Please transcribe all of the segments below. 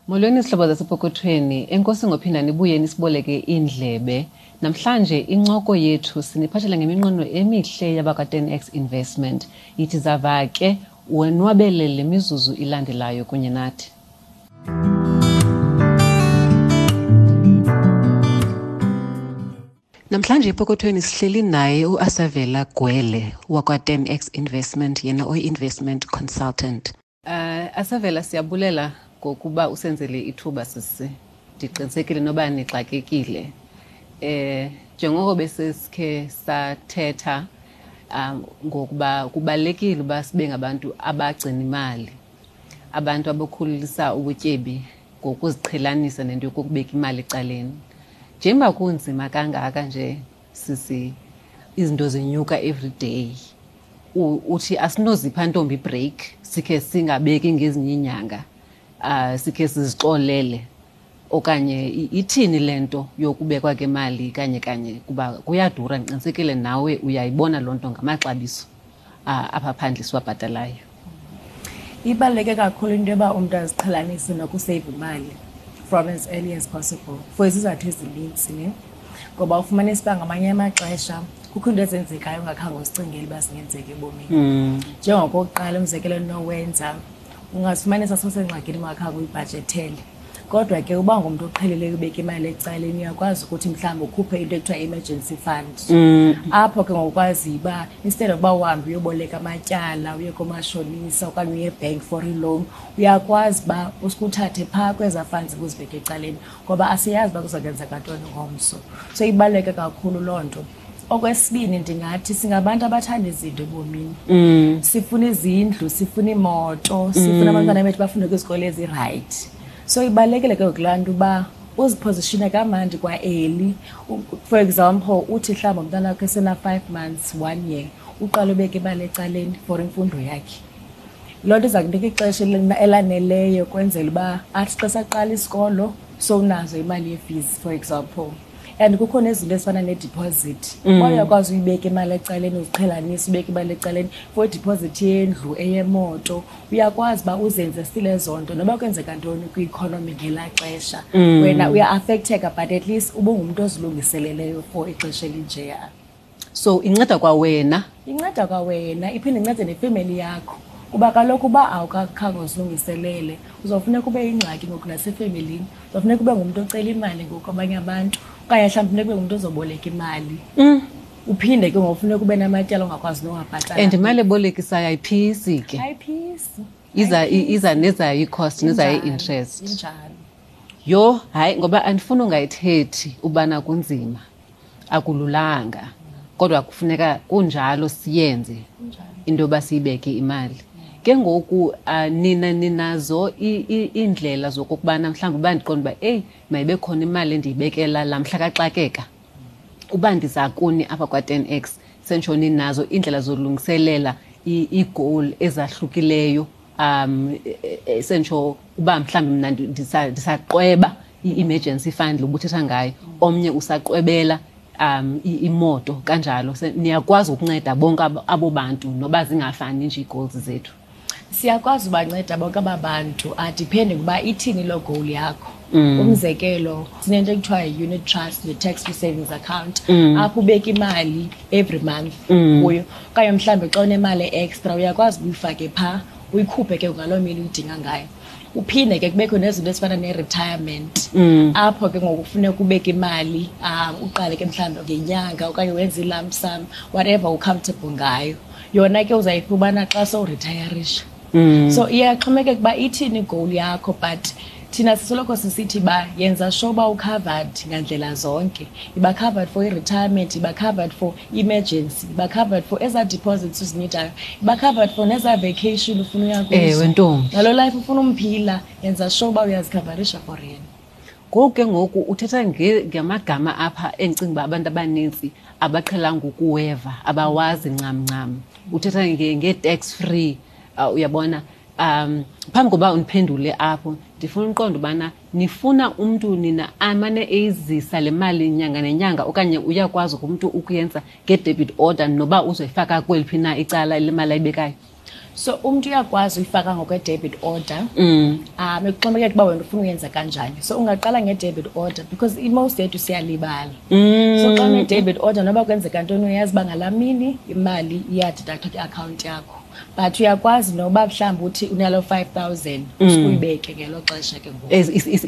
Molweni zihlobo zasepokothweni, enkosi ngophinda nibuye nisiboleke iindlebe. Namhlanje incoko yethu siniphathela ngeminqweno emihle yabakwa-10x Investment. Yithi zava ke wonwabele le mizuzu ilandelayo kunye nathi. Namhlanje epokothweni sihleli naye uAsavela Gwele wakwa-10x Investment, yena oyi-investment consultant. Asavela, siyabulela ngokuba usenzele ithuba sisi. Ndiqinisekile noba nixakekile. Njengoko besesikhe sathetha ngokuba kubalulekile uba sibe ngabantu abagcina imali, abantu abakhulisa ubutyebi ngokuziqhelanisa nento yokubeka imali ecaleni. Njengoba kunzima kangaka nje sisi, izinto zinyuka every day, uthi asinozipha ntombi break, sikhe singabeki ngezinye iinyanga, sikhe sizixolele, okanye ithini le nto yokubekwa kemali kanye kanye, kuba kuyadura? Ndiqinisekile nawe uyayibona loo nto ngamaxabiso apha phandle siwabhatalayo. Ibaluleke kakhulu into yoba umntu aziqhelanise nokuseyiva imali from as early as possible for izizathu ezinintsi, ne? Ngoba ufumanisa uba ngamanye amaxesha kukho into ezenzekayo ungakhange uzicingele uba zingenzeka ebomini. Njengokokuqala, umzekelo endinowenza, ungazifumanisa sowusengxakini ungakhange uyibhajethele. Kodwa ke uba ngumntu oqhelileyo ubeka imali ecaleni, uyakwazi ukuthi mhlawumbi ukhuphe into ekuthiwa emergency fund. Apho ke ngokwazi uba instead of uba uhambe uyoboleka amatyala, uye koomashonisa okanye uye ebhenki for i-loan, uyakwazi uba usikuthathe phaa kwezaa funds ubuzibeke ecaleni, ngoba asiyazi uba kuza kwenzeka ntoni ngomso. So ibaluleke kakhulu loo nto. Okwesibini, ndingathi singabantu abathanda izinto ebomini. Sifuna izindlu, sifuna iimoto, sifuna abantwana bethu bafunde kwizikolo ezirayithi. So ibalulekile ke ngoku laa nto uba uzipozishine kamandi kwa-early. For example, uthi mhlawumbi umntana wakho esena-5 months, 1 year, uqale ubeke imali ecaleni for imfundo yakhe. Loo nto iza kunika ixesha elaneleyo kwenzela uba athi xa saqala isikolo sowunazo imali ye-fees, for example. And kukho nezinto ezifana ne-deposit. Uba uyakwazi uyibeka imali ecaleni, uziqhelanise ubeke imali ecaleni for i-deposit yendlu, eyemoto, uyakwazi uba uzenze still ezo nto noba kwenzeka ntoni kwi-economy ngelaa xesha. Wena uya-affecteka, but at least ubungumntu ozilungiseleleyo for ixesha elinjeya. So inceda kwawena? Inceda kwawena, iphinde incede nefemeli yakho. Kuba kaloku uba awukakhange uzilungiselele, uzawufuneka ube yingxaki ngoku nasefemelini. Uzawufuneka ube ngumntu ocela imali ngoku kwabanye abantu, okanye mhlawumbi funeka ube ngumntu ozoboleka imali. Uphinde ke ngoku funeka ube namatyala ongakwazi nowabhatala. And imali ebolekisayo ayiphisi ke. Ayiphisi. Iza nezayo i-cost, nezayo i-interest. Injalo. Yho, hayi, ngoba andifuni ungayithethi ubana kunzima, akululanga, kodwa kufuneka kunjalo siyenze into yoba siyibeke imali. Ke ngoku, nina ninazo iindlela zokokubana mhlawumbi uba ndiqonda uba eyi, mayibe khona imali endiyibekela laa mhla kaxakeka, uba ndiza kuni apha kwa-10x, sentsho ninazo iindlela zolungiselela ii-goal ezahlukileyo, sentsho uba mhlawumbi mna ndisaqweba i-emergency fund lobuthetha ngayo, omnye usaqwebela imoto kanjalo. Niyakwazi ukunceda bonke abo bantu noba zingafani nje ii-goals zethu? Siyakwazi ubanceda bonke aba bantu, adepende ukuba ithini loo goal yakho. Umzekelo, sinento ekuthiwa yi-unit trust ne-tax free savings account, apho ubeka imali every month kuyo, okanye mhlawumbi xa unemali extra uyakwazi uyifake phaa, uyikhuphe ke ngaloo mini uyidinga ngayo. Uphinde ke kubekho nezinto ezifana ne-retirement, apho ke ngoku kufuneka ubeke imali, uqale ke mhlawumbi ngenyanga okanye wenze i-lump sum, whatever u-comfortable ngayo. Yona ke uzayifumana xa sowuritayarisha. So iyaxhomekeka uba ithini i-goal yakho, but thina sisoloko sisithi uba yenza sure uba u-covered ngandlela zonke. Iba covered for i-retirement, iba covered for emergency, iba covered for ezaa deposits uzinidayo, iba covered for nezaa vacation ufuna uya kuzo. Ewe, ntombi. Nalo life ufuna umphila, yenza sure uba uyazikhavarisha for yena. Ngoku ke ngoku uthetha ngamagama apha endicinga uba abantu abanintsi abaqhelanga ukuweva, abawazi ncam ncam. Uthetha nge-tax free, uyabona. Phambi koba undiphendule apho, ndifuna uqonda ubana nifuna umntu nina amane eyizisa le mali nyanga nenyanga, okanye uyakwazi umntu ukuyenza nge-debit order noba uzoyifaka kweliphi na icala le mali ayibekayo? So umntu uyakwazi uyifaka ngokwe-debit order, ekuxhomekeka uba wena ufuna uyenza kanjani. So ungaqala nge-debit order because i-most yethu siyalibala. So xa une-debit order, noba kwenzeka ntoni, uyazi uba ngalaa mini imali iya-deductwa kwiakhawunti yakho. But uyakwazi noba mhlawumbi uthi unaloo 5000, usukuyibeke ngelo xesha ke ngoku.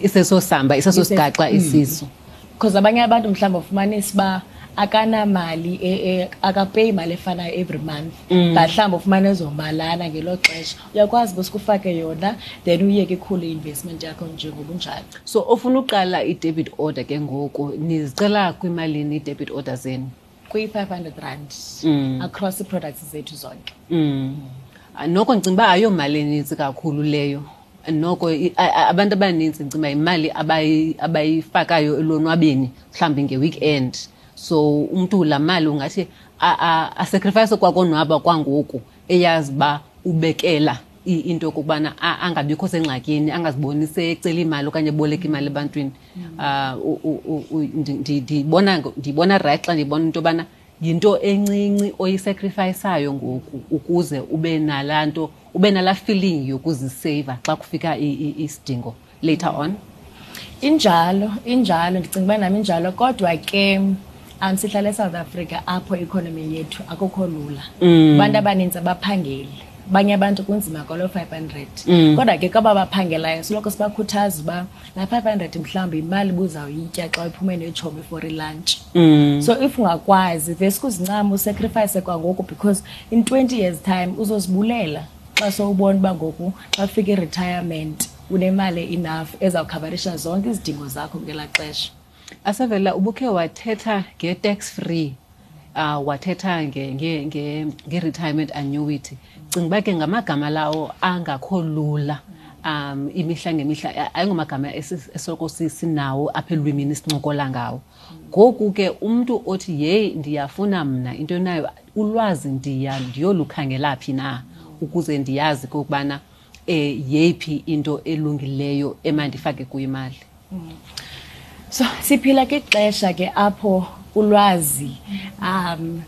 Iseso samba, iseso sigaxa isiso. Because abanye abantu mhlawumbi ufumanisa uba akanamali, akapeyi imali efanayo every month, but mhlawumbi ufumane ezomalana ngelo xesha, uyakwazi uba sikufake yona, then uyeke ikhule i-investment yakho njengobunjalo. So ofuna uqala i-debit order ke ngoku, nizicela kwimalini i-debit order zenu? Kwi-R500 across ii-products zethu zonke. Noko ndicinga uba ayomali enintsi kakhulu leyo. Noko abantu abanintsi ndicinga uba yimali abayifakayo elonwabeni mhlawumbi nge-weekend. So umntu laa mali ungathi a-sacrifice kwakonwaba kwangoku, eyazi uba ubekela into yokokubana angabikho sengxakini, angaziboni secela imali okanye eboleka imali ebantwini. Ndibona right xa ndibona into yobana yinto encinci oyi-sacrificeayo ngoku ukuze ube nalaa nto, ube nalaa feeling yokuziseyiva xa kufika isidingo later on. Injalo, injalo, ndicinga uba nam injalo, kodwa ke sihlala eSouth Africa apho economy yethu akukho lula. Abantu abanintsi abaphangeli. Abanye abantu kunzima kwalo 500. Kodwa ke kwaba baphangelayo soloko sibakhuthaza uba laa 500 mhlawumbi yimali ubuzawuyitya xa uphume neetshomi for i-lunch. So if ungakwazi, veske uzincame u-sacrifice kwangoku, because in 20 years time uzozibulela xa sowubona uba ngoku xa kufika i-retirement unemali enough ezawukhavarisha zonke izidingo zakho ngelaa xesha. Asavela, ubukhe wathetha nge-tax free, wathetha nge-retirement annuity. Cinga uba ke ngamagama lawo angakho lula, imihla ngemihla, ayingomagama esoloko sinawo apha elwimini sincokola ngawo. Ngoku ke umntu othi yeyi ndiyafuna mna into enayo ulwazi, ndiyolukhangela phi na ukuze ndiyazi okokubana yeyiphi into elungileyo emandifake kuyo imali? So siphila kwixesha ke apho ulwazi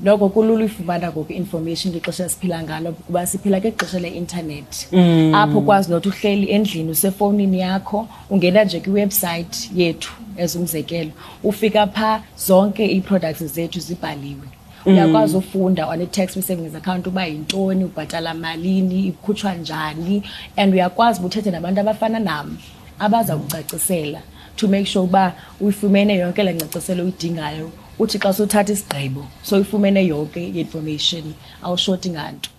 noko kulula uyifumana ngoku information kwixesha esiphila ngalo, kuba siphila kwixesha le-internet, apho ukwazi nothi uhleli endlini usefowunini yakho, ungena nje kwi-website yethu as umzekelo, ufika phaa zonke ii-products zethu zibhaliwe. Uyakwazi ufunda on i-tax free savings account uba yintoni, ubhatala malini, ikhutshwa njani, and uyakwazi uba uthethe nabantu abafana nam abaza kucacisela to make sure uba uyifumene yonke le ngcaciselo uyidingayo. Uthi xa sowuthatha isigqibo soyifumene yonke i-information, awushoti nganto.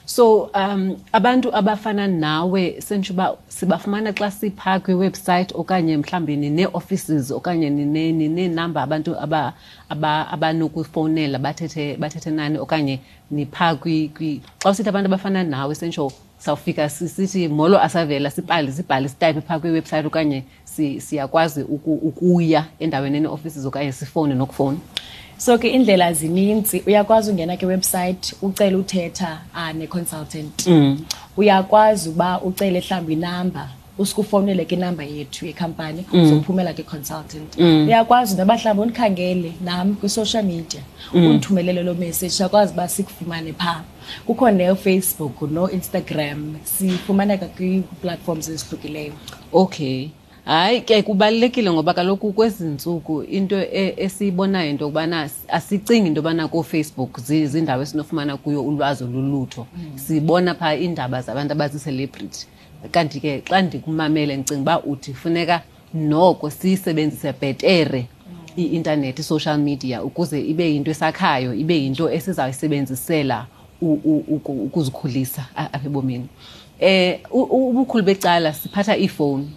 So abantu abafana nawe sentsho uba sibafumana xa siphaa kwi-website, okanye mhlawumbi ninee-offices, okanye nineenamba abantu abanokufowunela bathethe nani, okanye niphaa xa usithi abantu abafana nawe sentsho sawufika sithi molo Asavela, sibhale sitayiphe phaa kwi-website, okanye siyakwazi ukuya endaweni ene-offices, okanye sifowune nokufowuna? So ke indlela zininzi. Uyakwazi ungena kwi-website ucele uthetha ne-consultant. Uyakwazi uba ucele mhlawumbi inamba, usuke ke inamba yethu yekhampani, uzophumela kwi-consultant. Uyakwazi noba mhlawumbi undikhangele nam kwi-social media, undithumelele loo message, siyakwazi uba sikufumane phaa. Kukho neFacebook no-Instagram, sifumaneka kwii-platforms ezihlukileyo. Okay. Hayi ke kubalulekile, ngoba kaloku kwezi ntsuku into esiyibonayo into yokubana asicingi into yobana kooFacebook ziindawo esinofumana kuyo ulwazi olulutho. Sibona phaa iindaba zabantu abazii-celebrity. Kanti ke xa ndikumamele ndicinga uba uthi funeka noko siyisebenzise bhetere i-intanethi, i-social media, ukuze ibe yinto esakhayo, ibe yinto esizawuyisebenzisela ukuzikhulisa apha ebomini. Ubukhulu becala siphatha iifowuni.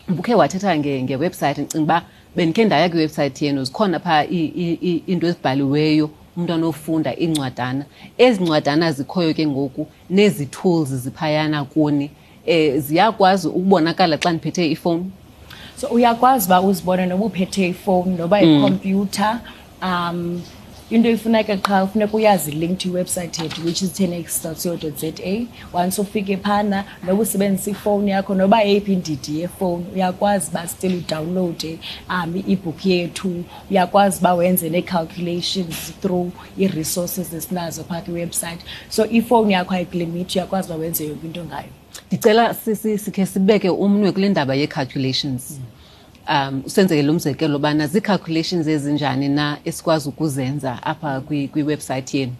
Ubukhe wathetha nge-website, ndicinga uba bendikhe ndaya kwi-website yenu, zikhona phaa iinto ezibhaliweyo umntu anofunda, iincwadana. Ezi ncwadana zikhoyo ke ngoku nezi tools ziphayana kuni, ziyakwazi ukubonakala xa ndiphethe ifowuni? So uyakwazi uba uzibone noba uphethe ifowuni noba ikhompyutha. Into ifuneka qha ufuneka uyazi link to iwebsite yethu, which is 10x.co.za. Once ufike phana, noba usebenzisa ifowuni yakho, noba yeyiphi indidi yefowuni, uyakwazi uba still udownloade i-ebook yethu. Uyakwazi uba wenze nee-calculations through ii-resources esinazo phaa kwiwebsite. So ifowuni yakho ayikulimiti, uyakwazi uba wenze yonke into ngayo. Ndicela sikhe sibeke umnwe kule ndaba yee-calculations. Usenzeke lo mzekelo bana zii-calculations ezinjani na esikwazi ukuzenza apha kwiwebsite yenu.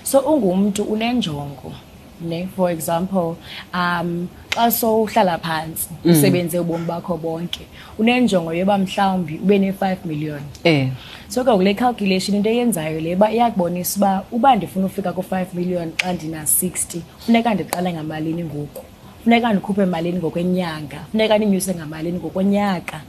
So ungumntu unenjongo, ne? For example, xa sowuhlala phantsi, usebenze ubomi bakho bonke, unenjongo yoba mhlawumbi ube ne-5 million. So ke kule calculation into eyenzayo le uba iyakubonisa uba ndifuna ufika ku-5 million xa ndina-60, funeka ndiqale ngamalini ngoku, funeka ndikhuphe malini ngokwenyanga, funeka ndinyuse ngamalini ngokonyaka,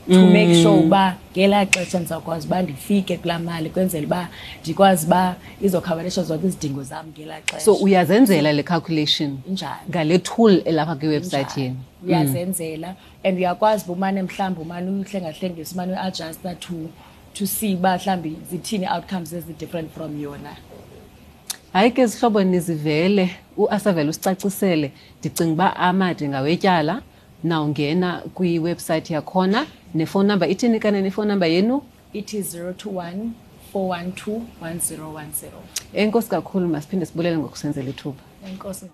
to make sure uba ngelaa xesha ndizawukwazi uba ndifike kulaa mali, kwenzela uba ndikwazi uba izokhavarisha zonke izidingo zam ngelaa xesha. So uyazenzela le calculation Njalo. ngale tool elapha kwiwebsite yenu? Uyazenzela, and uyakwazi uba umane mhlawumbi umane uyihlengahlengisa, umane uyiadjusta to see uba mhlawumbi zithini outcomes ezi-different from yona. Hayi ke zihlobo, nizivele uAsavela usicacisele. Ndicinga uba amade ngawetyala. Nawungena kwiwebsite yakhona, nefowuni number ithini kanene ifowuni number yenu? Ithi 021 412 1010. Enkosi kakhulu, masiphinde sibulele ngokusenzela ithuba. Enkosi.